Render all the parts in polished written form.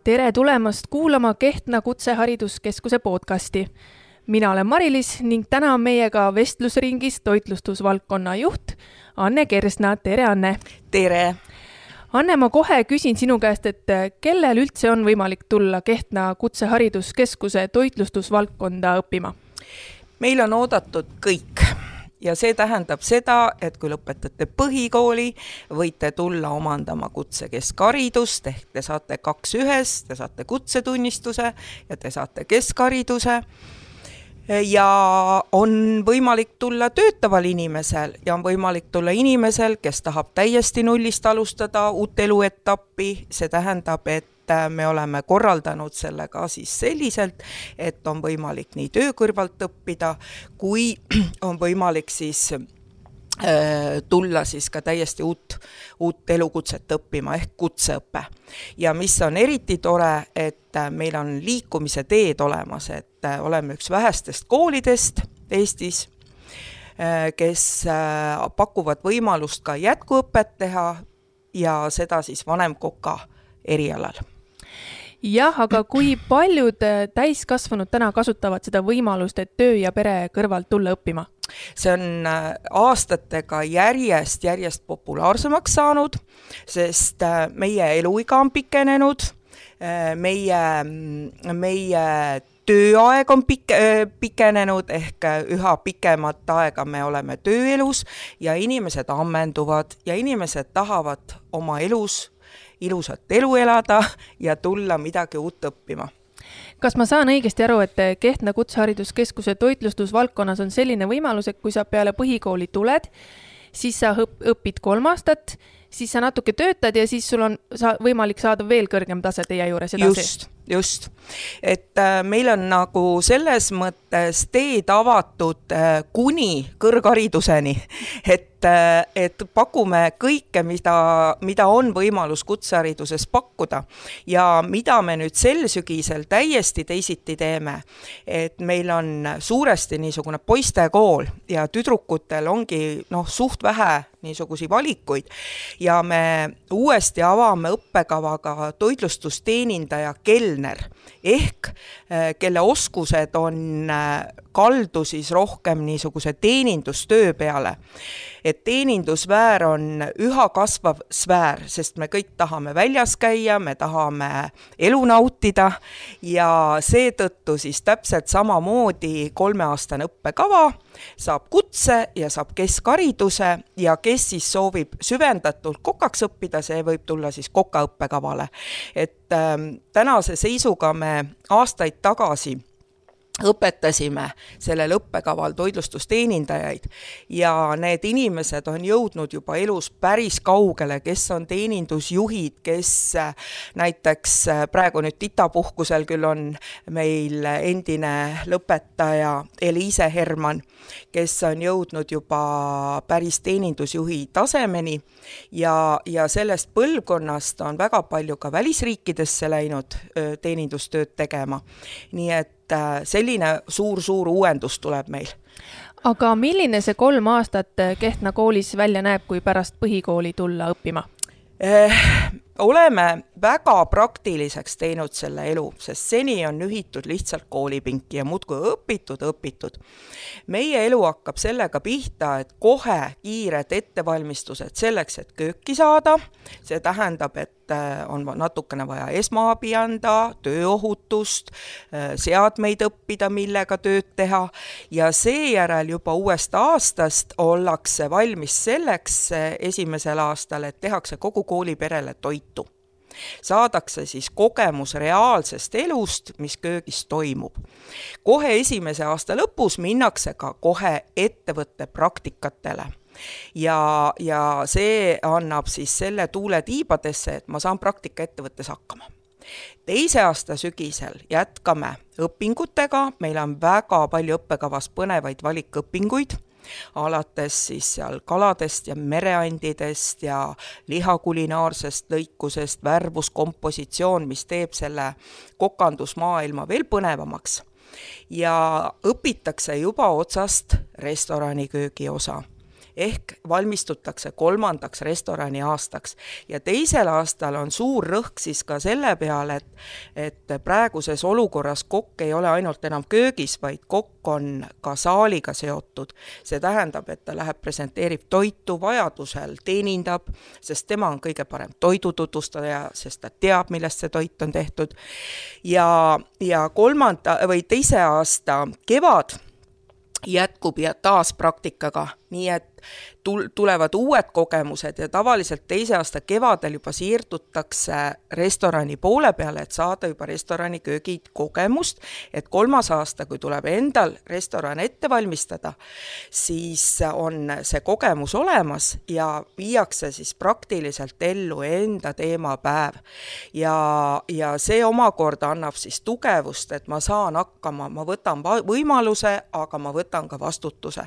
Tere tulemast kuulama Kehtna Kutsehariduskeskuse podcasti. Mina olen Mari-Liis ning täna on meiega vestlusringis toitlustusvaldkonna juht Anne Kersna. Tere, Anne! Tere! Anne, ma kohe küsin sinu käest, et kellel üldse on võimalik tulla Kehtna Kutsehariduskeskuse toitlustusvaldkonda õppima? Meil on oodatud kõik. Ja see tähendab seda, et kui lõpetate põhikooli, võite tulla omandama kutsekeskharidust, ehk te saate 2-1, te saate kutsetunnistuse ja te saate keskhariduse. Ja on võimalik tulla töötaval inimesel ja on võimalik tulla inimesel, kes tahab täiesti nullist alustada uut eluetappi. See tähendab, et me oleme korraldanud selle ka siis selliselt, et on võimalik nii töö kõrvalt õppida, kui on võimalik siis tulla siis ka täiesti uut elukutset õppima ehk kutseõppe. Ja mis on eriti tore, et meil on liikumise teed olemas, et oleme üks vähestest koolidest Eestis, kes pakuvad võimalust ka jätkuõpet teha ja seda siis vanemkoka erialal. Jah, aga kui paljud täiskasvanud täna kasutavad seda võimalust, et töö ja pere kõrvalt tulla õppima? See on aastatega järjest populaarsemaks saanud, sest meie eluiga on pikenenud, meie tööaeg on pikenenud ehk üha pikemat aega me oleme tööelus ja inimesed ammenduvad ja inimesed tahavad oma elus ilusat elu elada ja tulla midagi uut õppima. Kas ma saan õigesti aru, et Kehtna Kutsehariduskeskuse toitlustusvaldkonnas on selline võimalus, et kui sa peale põhikooli tuled, siis sa õpid 3 aastat, siis sa natuke töötad ja siis sul on võimalik saada veel kõrgem tase teie juures edasi? Just. Et meil on nagu selles mõttes teed avatud kuni kõrghariduseni, et pakume kõike, mida on võimalus kutsehariduses pakkuda ja mida me nüüd sel sügisel täiesti teisiti teeme, et meil on suuresti niisugune poistekool ja tüdrukutel ongi suht vähe niisugusi valikuid ja me uuesti avame õppekavaga toitlustusteenindaja kelner ehk kelle oskused on kaldu siis rohkem niisuguse teenindustöö peale. Et teenindussfäär on üha kasvav sfäär, sest me kõik tahame väljas käia, me tahame elu nautida ja seetõttu siis täpselt samamoodi 3-aastane õppekava saab kutse ja saab keskhariduse ja kes siis soovib süvendatult kokaks õppida, see võib tulla siis kokaõppekavale. Et tänase seisuga me aastaid tagasi õpetasime sellel õppekaval toitlustusteenindajaid ja need inimesed on jõudnud juba elus päris kaugele, kes on teenindusjuhid, kes näiteks praegu nüüd titapuhkusel küll on meil endine lõpetaja Eliise Herman, kes on jõudnud juba päris teenindusjuhi tasemeni ja sellest põlvkonnast on väga palju ka välisriikidesse läinud teenindustööd tegema. Nii et selline suur uuendus tuleb meil. Aga milline see 3 aastat Kehtna koolis välja näeb, kui pärast põhikooli tulla õppima? Oleme väga praktiliseks teinud selle elu, sest seni on ühitud lihtsalt koolipinki ja muudkui õpitud. Meie elu hakkab sellega pihta, et kohe kiired ettevalmistused selleks, et kööki saada. See tähendab, et on natukene vaja esmaabi anda, tööohutust, seadmeid õppida, millega tööd teha ja seejärel juba uuest aastast ollakse valmis selleks esimesel aastal, et tehakse kogu kooliperele toitu. Saadakse siis kogemus reaalsest elust, mis köögis toimub. Kohe esimese aasta lõpus minnakse ka kohe ettevõtte praktikatele. Ja see annab siis selle tuule tiibadesse, et ma saan praktika ettevõttes hakkama. Teise aasta sügisel jätkame õpingutega, meil on väga palju õppekavas põnevaid valikõpinguid, alates siis seal kaladest ja mereandidest ja lihakulinaarsest lõikusest, värvuskompositsioon, mis teeb selle kokandusmaailma veel põnevamaks. Ja õpitakse juba otsast restoraniköögi osa. ehk valmistutakse 3. restorani aastaks. Ja teisel aastal on suur rõhk siis ka selle peale, et praeguses olukorras kokk ei ole ainult enam köögis, vaid kokk on ka saaliga seotud. See tähendab, et ta läheb, presenteerib toitu, vajadusel teenindab, sest tema on kõige parem toidututvustaja, sest ta teab, millest see toit on tehtud. Ja 2. aasta kevad jätkub ja taas praktikaga, nii et tulevad uued kogemused ja tavaliselt 2. aasta kevadel juba siirdutakse restorani poole peale, et saada juba restorani köögid kogemust, et 3. aasta, kui tuleb endal restoran ette valmistada, siis on see kogemus olemas ja viiakse siis praktiliselt ellu enda teemapäev. Ja see omakorda annab siis tugevust, et ma saan hakkama, ma võtan võimaluse, aga ma võtan ka vastutuse.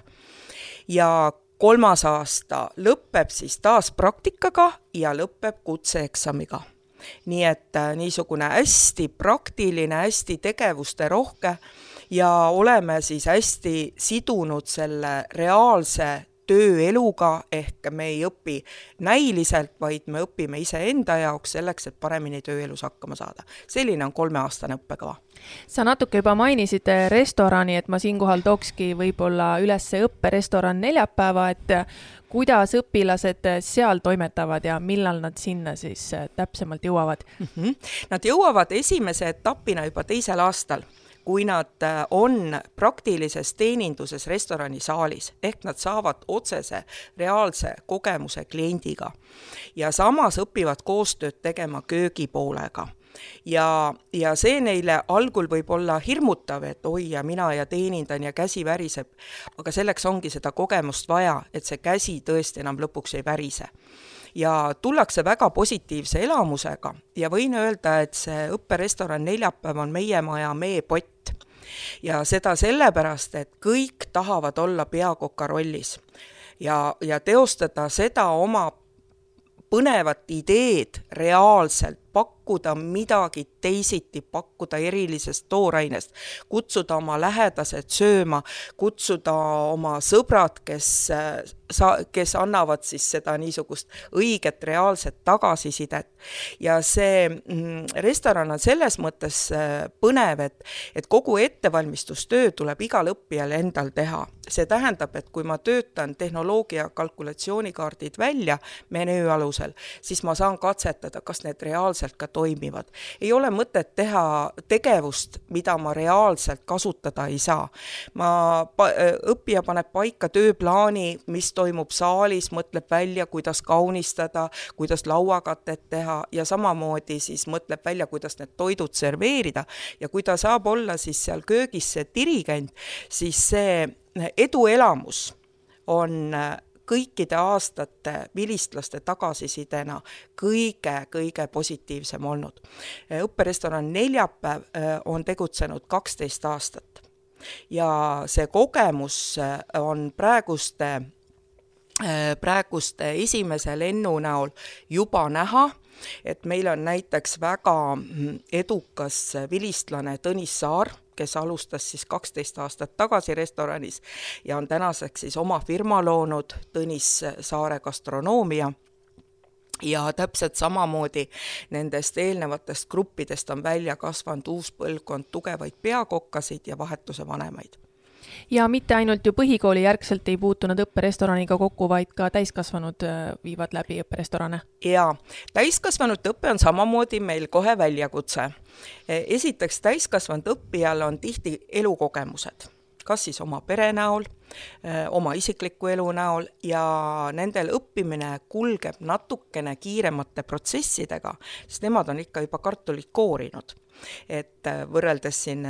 Ja 3. aasta lõpeb siis taas praktikaga ja lõpeb kutseeksamiga. Nii et niisugune hästi praktiline, hästi tegevuste rohke ja oleme siis hästi sidunud selle reaalse tööeluga, ehk me ei õpi näiliselt, vaid me õpime iseenda jaoks selleks, et paremini tööelus hakkama saada. Selline on 3-aastane õppekava. Sa natuke juba mainisid restorani, et ma siinkohal tookski võib-olla üles õpperestoran neljapäeva, et kuidas õpilased seal toimetavad ja millal nad sinna siis täpsemalt jõuavad? Nad jõuavad esimese etapina juba 2. aastal, kui nad on praktilises teeninduses restorani saalis, ehk nad saavad otsese reaalse kogemuse kliendiga ja samas õpivad koostööd tegema köögipoolega. Ja see neile algul võib olla hirmutav, et oi ja mina ja teenindan ja käsi väriseb, aga selleks ongi seda kogemust vaja, et see käsi tõesti enam lõpuks ei värise. Ja tullakse väga positiivse elamusega ja võin öelda, et see õpperestoran neljapäev on meie maja meepott. Ja seda sellepärast, et kõik tahavad olla peakoka rollis ja teostada seda oma põnevat ideed reaalselt, pakkuda midagi teisiti, pakkuda erilisest toorainest, kutsuda oma lähedased sööma, kutsuda oma sõbrad, kes annavad siis seda niisugust õiget reaalset tagasisidet. Ja see restoran on selles mõttes põnev, et kogu ettevalmistustöö tuleb igal õppijal endal teha. See tähendab, et kui ma töötan tehnoloogia kalkulatsioonikaardid välja menüü alusel, siis ma saan katsetada, kas need reaalselt ka toimivad. Ei ole mõtet teha tegevust, mida ma reaalselt kasutada ei saa. Õppija paneb paika tööplaani, mis toimub saalis, mõtleb välja, kuidas kaunistada, kuidas lauakatet teha ja samamoodi siis mõtleb välja, kuidas need toidud serveerida ja kui ta saab olla siis seal köögis see dirigent, siis see eduelamus on kõikide aastate vilistlaste tagasisidena kõige positiivsem olnud. Õpperestoran neljapäev on tegutsenud 12 aastat ja see kogemus on praeguste esimese lennu näol juba näha, et meil on näiteks väga edukas vilistlane Tõnis Saar, kes alustas siis 12 aastat tagasi restoranis ja on tänaseks siis oma firma loonud Tõnis Saare gastronoomia. Ja täpselt samamoodi nendest eelnevatest gruppidest on välja kasvanud uus põlvkond tugevaid peakokkasid ja vahetuse vanemaid. Ja mitte ainult ju põhikooli järgselt ei puutunud õpperestoraniga kokku, vaid ka täiskasvanud viivad läbi õpperestorane. Ja täiskasvanud õppe on samamoodi meil kohe väljakutse. Esiteks täiskasvanud õppijal on tihti elukogemused, kas siis oma pere näol, oma isikliku elu näol ja nendel õppimine kulgeb natukene kiiremate protsessidega, sest nemad on ikka juba kartulit koorinud. Et võrreldes siin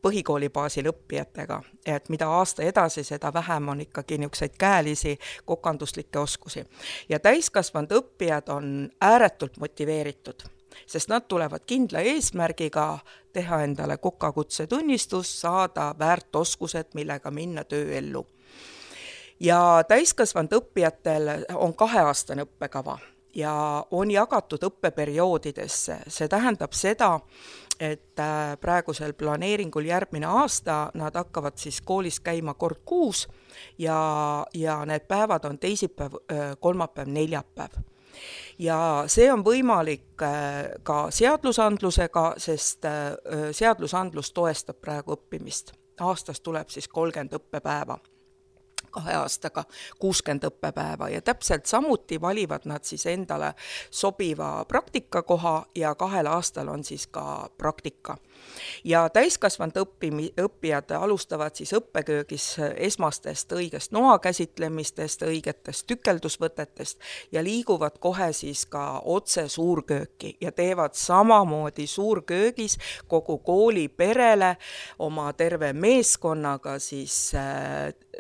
põhikooli baasil õppijatega, et mida aasta edasi, seda vähem on ikkagi niisuguseid käelisi kokanduslikke oskusi. Ja täiskasvanud õppijad on ääretult motiveeritud, sest nad tulevad kindla eesmärgiga teha endale kokakutse tunnistus, saada väärt oskused, millega minna tööellu. Ja täiskasvanud õppijatel on 2-aastane õppekava. ja on jagatud õppeperioodidesse. See tähendab seda, et praegusel planeeringul järgmine aasta nad hakkavad siis koolis käima kord kuus ja need päevad on teisipäev, kolmapäev, neljapäev. Ja see on võimalik ka seadusandlusega, sest seadusandlus toestab praegu õppimist. Aastas tuleb siis 30 õppepäeva. 2 aastaga 60 õppepäeva ja täpselt samuti valivad nad siis endale sobiva praktikakoha ja 2 aastal on siis ka praktika. Ja täiskasvanud õppijad alustavad siis õppeköögis esmastest õigest noa käsitlemistest, õigetest tükeldusvõtetest ja liiguvad kohe siis ka otse suurkööki ja teevad samamoodi suurköögis kogu kooli perele oma terve meeskonnaga siis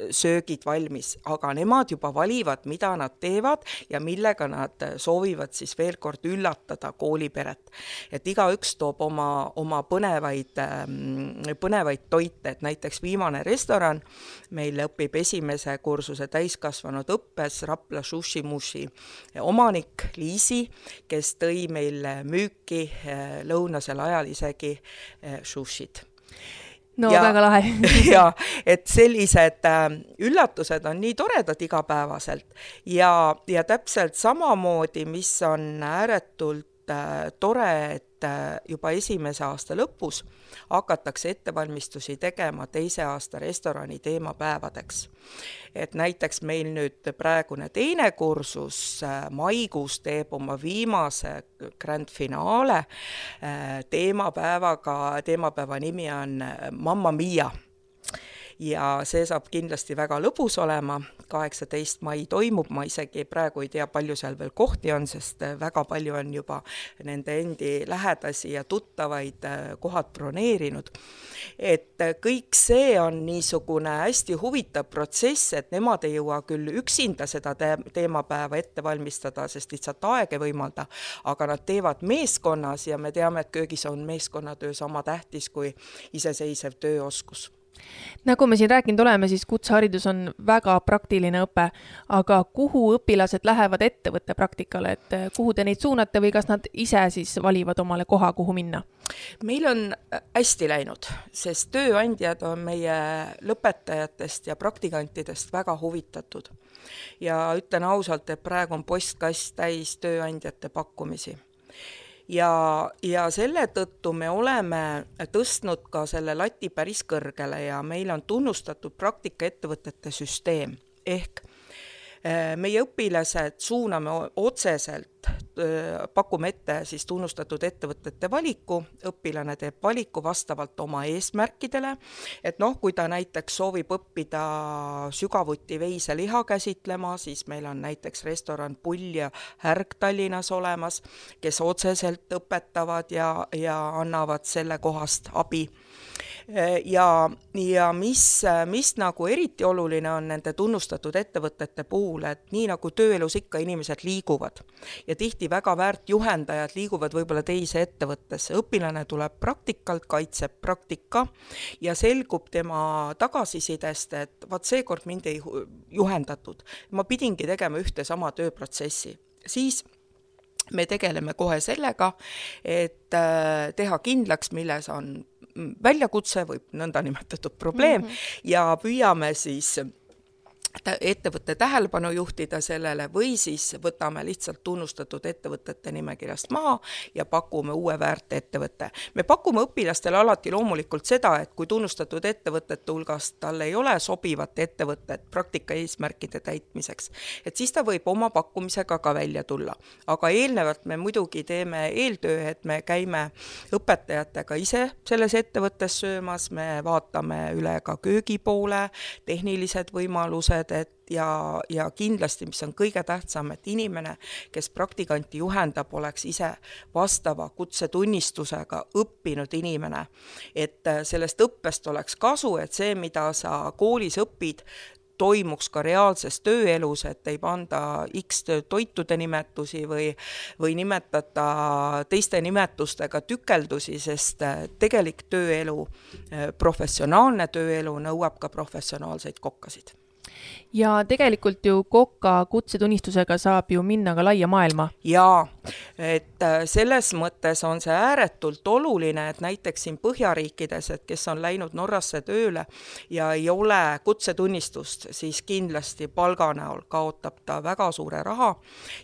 söögid valmis, aga nemad juba valivad, mida nad teevad ja millega nad soovivad siis veel kord üllatada kooliperet. Et igaüks toob oma põnevaid toite, et näiteks viimane restoran meil õpib esimese kursuse täiskasvanud õppes Rapla Sushi Mushi omanik Liisi, kes tõi meil müüki lõunasel ajal isegi sushid. No väga lahe. Ja et sellised üllatused on nii toredad igapäevaselt ja täpselt samamoodi, mis on ääretult tore, et juba esimese aasta lõpus hakatakse ettevalmistusi tegema 2. aasta restorani teemapäevadeks. Et näiteks meil nüüd praegune 2. kursus maikuus teeb oma viimase grand finaale teemapäeva nimi on Mamma Mia. Ja see saab kindlasti väga lõbus olema, 18. mai toimub, ma isegi praegu ei tea, palju seal veel kohti on, sest väga palju on juba nende endi lähedasi ja tuttavaid kohad broneerinud. Et kõik see on niisugune hästi huvitav protsess, et nemad ei jõua küll üksinda seda teemapäeva ette valmistada, sest lihtsalt aeg ei võimalda, aga nad teevad meeskonnas ja me teame, et köögis on meeskonnatöö sama tähtis kui iseseisev tööoskus. Nagu me siin rääkinud oleme, siis kutseharidus on väga praktiline õpe, aga kuhu õpilased lähevad ettevõtte praktikale, et kuhu te neid suunate või kas nad ise siis valivad omale koha, kuhu minna? Meil on hästi läinud, sest tööandjad on meie lõpetajatest ja praktikantidest väga huvitatud. Ja ütlen ausalt, et praegu on postkast täis tööandjate pakkumisi. Ja selle tõttu me oleme tõstnud ka selle lati päris kõrgele ja meil on tunnustatud praktikaettevõtete süsteem ehk meie õpilased suuname otseselt, pakume ette siis tunnustatud ettevõtete valiku, õpilane teeb valiku vastavalt oma eesmärkidele, et kui ta näiteks soovib õppida sügavuti veiseliha käsitlema, siis meil on näiteks restoran Pull ja Härg Tallinnas olemas, kes otseselt õpetavad ja annavad selle kohast abi. Ja mis nagu eriti oluline on nende tunnustatud ettevõtete puhul, et nii nagu tööelus ikka inimesed liiguvad ja tihti väga väärt juhendajad liiguvad võib-olla teise ettevõttesse. Õpilane tuleb praktikalt, kaitseb praktika ja selgub tema tagasisidest, et seekord mind ei juhendatud. Ma pidingi tegema ühte sama tööprotsessi. Siis me tegeleme kohe sellega, et teha kindlaks, milles on väljakutse või nõnda nimetatud probleem ja püüame siis ettevõtte tähelepanu juhtida sellele või siis võtame lihtsalt tunnustatud ettevõtete nimekirjast maha ja pakume uue väärt ettevõtte. Me pakume õpilastele alati loomulikult seda, et kui tunnustatud ettevõtete hulgast tal ei ole sobivat ettevõtet praktika eesmärkide täitmiseks, et siis ta võib oma pakkumisega ka välja tulla. Aga eelnevalt me muidugi teeme eeltöö, et me käime õpetajatega ise selles ettevõttes söömas, me vaatame üle ka köögipoole, tehnilised võimalused, ja kindlasti, mis on kõige tähtsam, et inimene, kes praktikanti juhendab, oleks ise vastava kutsetunnistusega õppinud inimene. Et sellest õppest oleks kasu, et see, mida sa koolis õpid, toimuks ka reaalses tööelus, et ei panda X toitude nimetusi või nimetada teiste nimetustega tükeldusi, sest tegelik tööelu, professionaalne tööelu nõuab ka professionaalseid kokkasid. ja tegelikult ju Koka kutsetunnistusega saab ju minna ka laia maailma. Jaa, et selles mõttes on see ääretult oluline, et näiteks siin Põhjariikides, et kes on läinud Norrasse tööle ja ei ole kutsetunnistust, siis kindlasti palga näol kaotab ta väga suure raha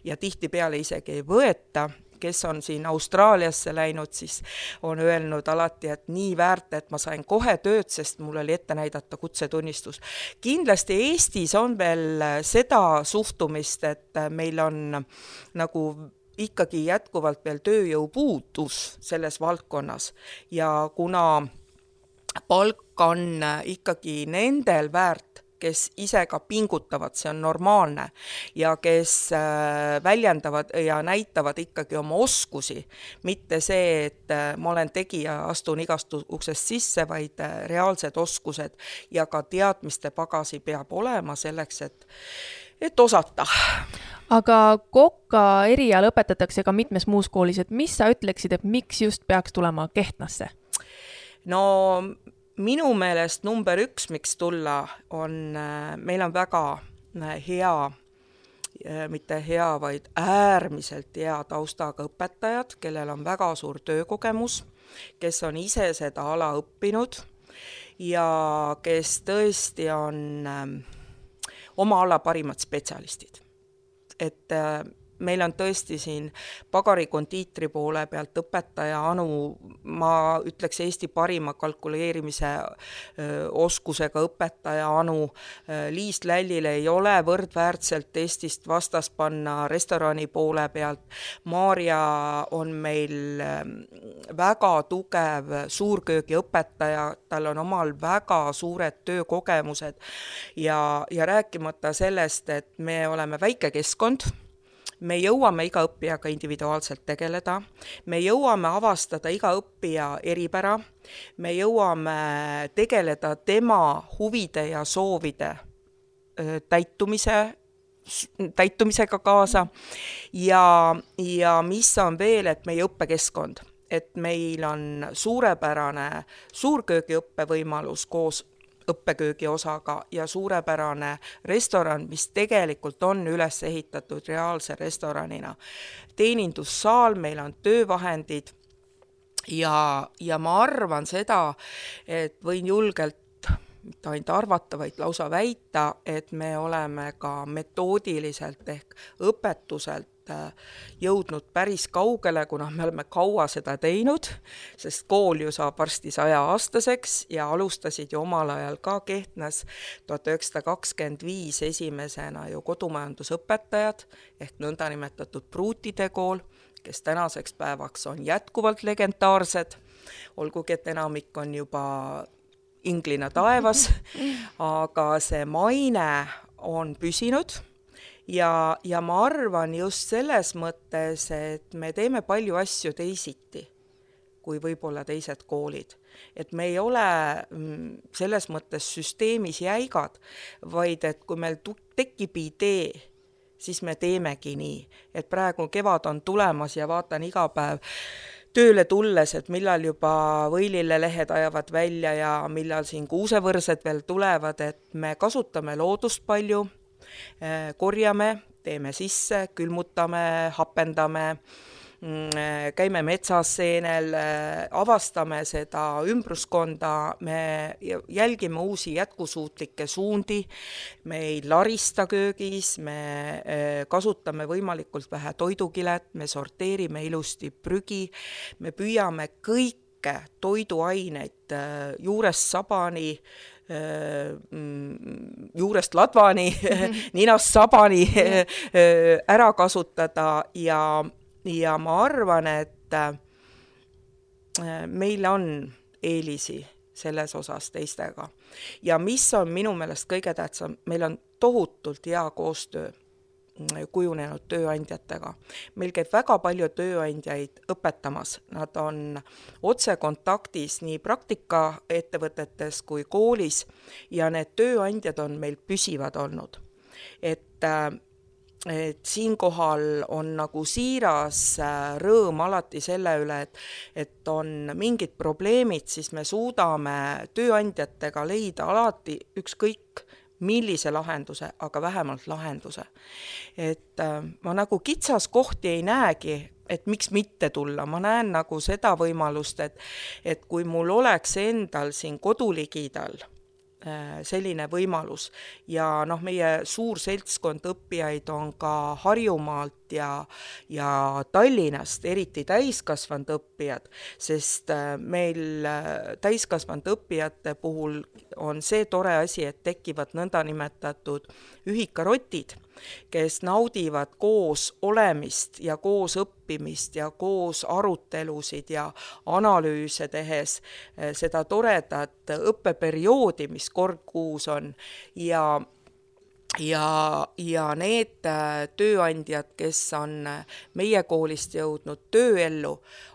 ja tihtipeale isegi ei võeta. Kes on siin Austraaliasse läinud, siis on öelnud alati, et nii väärt, et ma sain kohe tööd, sest mul oli ette näidata kutsetunnistus. Kindlasti Eestis on veel seda suhtumist, et meil on nagu ikkagi jätkuvalt veel tööjõupuudus selles valdkonnas ja kuna palk on ikkagi nendel väärt, kes ise ka pingutavad, see on normaalne, ja kes väljendavad ja näitavad ikkagi oma oskusi, mitte see, et ma olen tegija, astun igast uksest sisse, vaid reaalsed oskused ja ka teadmiste pagasi peab olema selleks, et osata. Aga Koka eriala õpetatakse ka mitmes muus koolis, et mis sa ütleksid, et miks just peaks tulema Kehtnasse? No minu meelest number 1, miks tulla, on, meil on väga hea, mitte hea, vaid äärmiselt hea taustaga õpetajad, kellel on väga suur töökogemus, kes on ise seda ala õppinud ja kes tõesti on oma ala parimad spetsialistid. Et meil on tõesti siin pagarikondiitri poole pealt õpetaja Anu, ma ütleks Eesti parima kalkuleerimise oskusega õpetaja Anu. Liis Lällile ei ole võrdväärtselt Eestist vastas panna restorani poole pealt. Maarja on meil väga tugev suurköögi õpetaja, tal on omal väga suured töökogemused ja rääkimata sellest, et me oleme väike keskkond, me jõuame iga õppijaga individuaalselt tegeleda, me jõuame avastada iga õppija eripära, me jõuame tegeleda tema huvide ja soovide täitumisega kaasa ja mis on veel, et meie õppekeskkond, et meil on suurepärane suurköögi õppevõimalus koos õppeköögi osaga ja suurepärane restoran, mis tegelikult on üles ehitatud reaalse restoranina. Teenindussaal, meil on töövahendid ja ma arvan seda, et võin julgelt mitte ainult arvata, vaid lausa väita, et me oleme ka metoodiliselt ehk õpetuselt jõudnud päris kaugele, kuna me oleme kaua seda teinud, sest kool ju saab varsti 100-aastaseks ja alustasid ju omal ajal ka Kehtnas 1925 esimesena ju kodumajandusõpetajad ehk nõndanimetatud pruutide kool, kes tänaseks päevaks on jätkuvalt legendaarsed, olgugi et enamik on juba inglina taevas, aga see maine on püsinud. Ja ma arvan just selles mõttes, et me teeme palju asju teisiti kui võib-olla teised koolid. Et me ei ole selles mõttes süsteemis jäigad, vaid et kui meil tekib idee, siis me teemegi nii. Et praegu kevad on tulemas ja vaatan iga päev tööle tulles, et millal juba võilillelehed ajavad välja ja millal siin kuusevõrsed veel tulevad, et me kasutame loodust palju, korjame, teeme sisse, külmutame, hapendame, käime metsas seenel, avastame seda ümbruskonda, me jälgime uusi jätkusuutlikke suundi, me ei larista köögis, me kasutame võimalikult vähe toidukilet, me sorteerime ilusti prügi, me püüame kõike toiduaineid juurest sabani, juurest ladvani, ninast sabani ära kasutada ja ma arvan, et meil on eelisi selles osas teistega. Ja mis on minu meelest kõige tähtsam, meil on tohutult hea koostöö kujunenud tööandjatega. Meil käib väga palju tööandjaid õpetamas. Nad on otsekontaktis nii praktikaettevõtetes kui koolis ja need tööandjad on meil püsivad olnud. Et siinkohal on nagu siiras rõõm alati selle üle, et on mingid probleemid, siis me suudame tööandjatega leida alati ükskõik millise lahenduse, aga vähemalt lahenduse. Et ma nagu kitsas kohti ei näegi, et miks mitte tulla, ma näen nagu seda võimalust, et kui mul oleks endal siin koduligidal selline võimalus ja meie suur seltskond õppijaid on ka Harjumaalt ja Tallinnast, eriti täiskasvanud õppijad, sest meil täiskasvanud õppijate puhul on see tore asi, et tekivad nõndanimetatud ühikarotid, kes naudivad koos olemist ja koos õppimist ja koos arutelusid ja analüüse tehes seda toredat õppeperioodi, mis kord kuus on ja need tööandjad, kes on meie koolist jõudnud tööellu,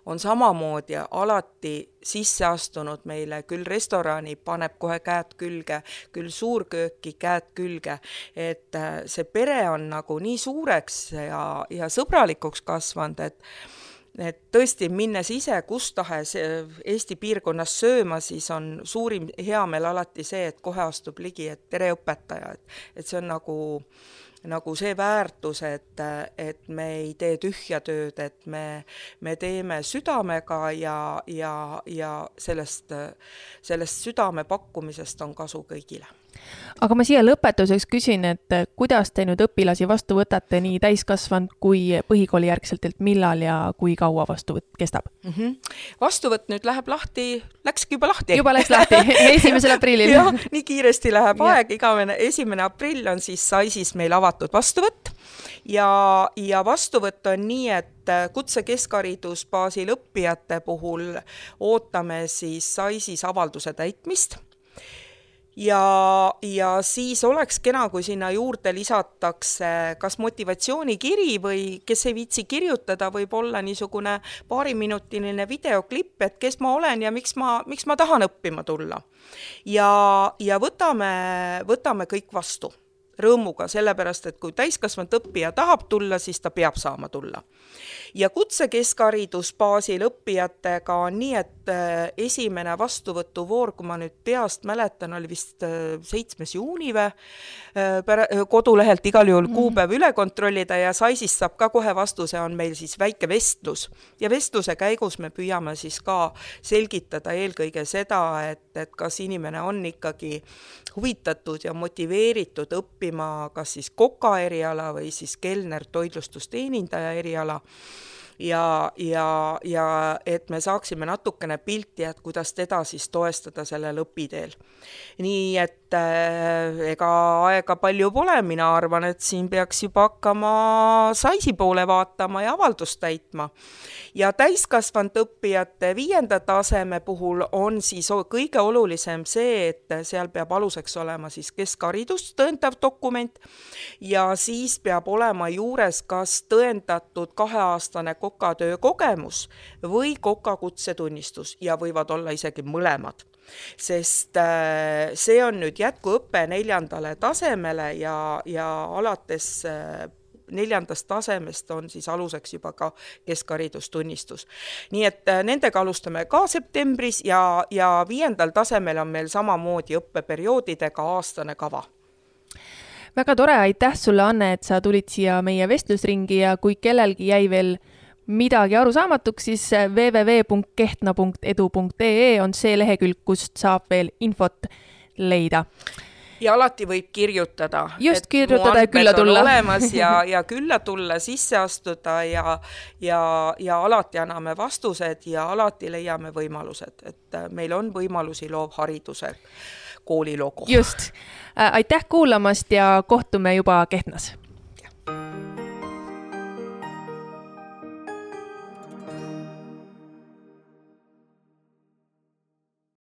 on samamoodi alati sisse astunud meile, küll restorani paneb kohe käed külge, küll suurkööki käed külge, et see pere on nagu nii suureks ja sõbralikuks kasvanud, et tõesti minnes ise kus tahes Eesti piirkonnas sööma, siis on suurim heameel alati see, et kohe astub ligi, et tere õpetaja, et see on nagu see väärtus, et me ei tee tühja tööd, et me teeme südamega ja sellest südame pakkumisest on kasu kõigile. Aga ma siia lõpetuseks küsin, et kuidas te nüüd õpilasi vastu võtate nii täiskasvanud kui põhikooli järgselt, et millal ja kui kaua vastuvõtt kestab? Vastuvõtt nüüd läheb lahti, läkski juba lahti. Juba läks lahti, 1. aprillil. Jah, nii kiiresti läheb aeg, 1. aprill on siis SAIS-is meil avatud vastuvõtt ja vastuvõtt on nii, et kutsekeskharidusbaasil õppijate puhul ootame siis SAIS-is avalduse täitmist. Ja siis oleks kena, kui sinna juurde lisatakse kas motivatsioonikiri või kes ei viitsi kirjutada, võib olla niisugune paariminutiline videoklipp, et kes ma olen ja miks ma tahan õppima tulla. Ja võtame kõik vastu rõõmuga, sellepärast, et kui täiskasvanud õppija tahab tulla, siis ta peab saama tulla. Ja kutsekeskharidusbaasil õppijatega on nii, et esimene vastuvõtuvoor, kui ma nüüd peast mäletan, oli vist 7. juuni kodulehelt igal juhul kuupäev üle kontrollida ja SAIS-ist saab ka kohe vastuse, on meil siis väike vestlus. Ja vestluse käigus me püüame siis ka selgitada eelkõige seda, et kas inimene on ikkagi huvitatud ja motiveeritud õppima kas siis koka eriala või siis kelner toitlustusteenindaja eriala ja et me saaksime natukene pilti, et kuidas teda siis toestada sellel õpiteel. Nii et ega aega palju pole, mina arvan, et siin peaks juba hakkama SAIS-i poole vaatama ja avaldust täitma. Ja täiskasvanud õppijate 5. taseme puhul on siis kõige olulisem see, et seal peab aluseks olema siis keskharidust tõendav dokument ja siis peab olema juures kas tõendatud 2-aastane kokatöö kogemus või kokakutsetunnistus ja võivad olla isegi mõlemad. Sest see on nüüd jätkuõpe 4. tasemele ja alates 4. tasemest on siis aluseks juba ka keskharidustunnistus. Nii et nendega alustame ka septembris ja 5. tasemel on meil samamoodi õppeperioodidega aastane kava. Väga tore, aitäh sulle, Anne, et sa tulid siia meie vestlusringi ja kui kellelgi jäi veel midagi arusaamatuks, siis www.kehtna.edu.ee on see lehekülg, kust saab veel infot leida. Ja alati võib kirjutada. Just kirjutada ja külla tulla. Olemas ja külla tulla, sisse astuda ja alati anname vastused ja alati leiame võimalused, et meil on võimalusi loovhariduse kooli logo. Just. Aitäh kuulamast ja kohtume juba Kehtnas.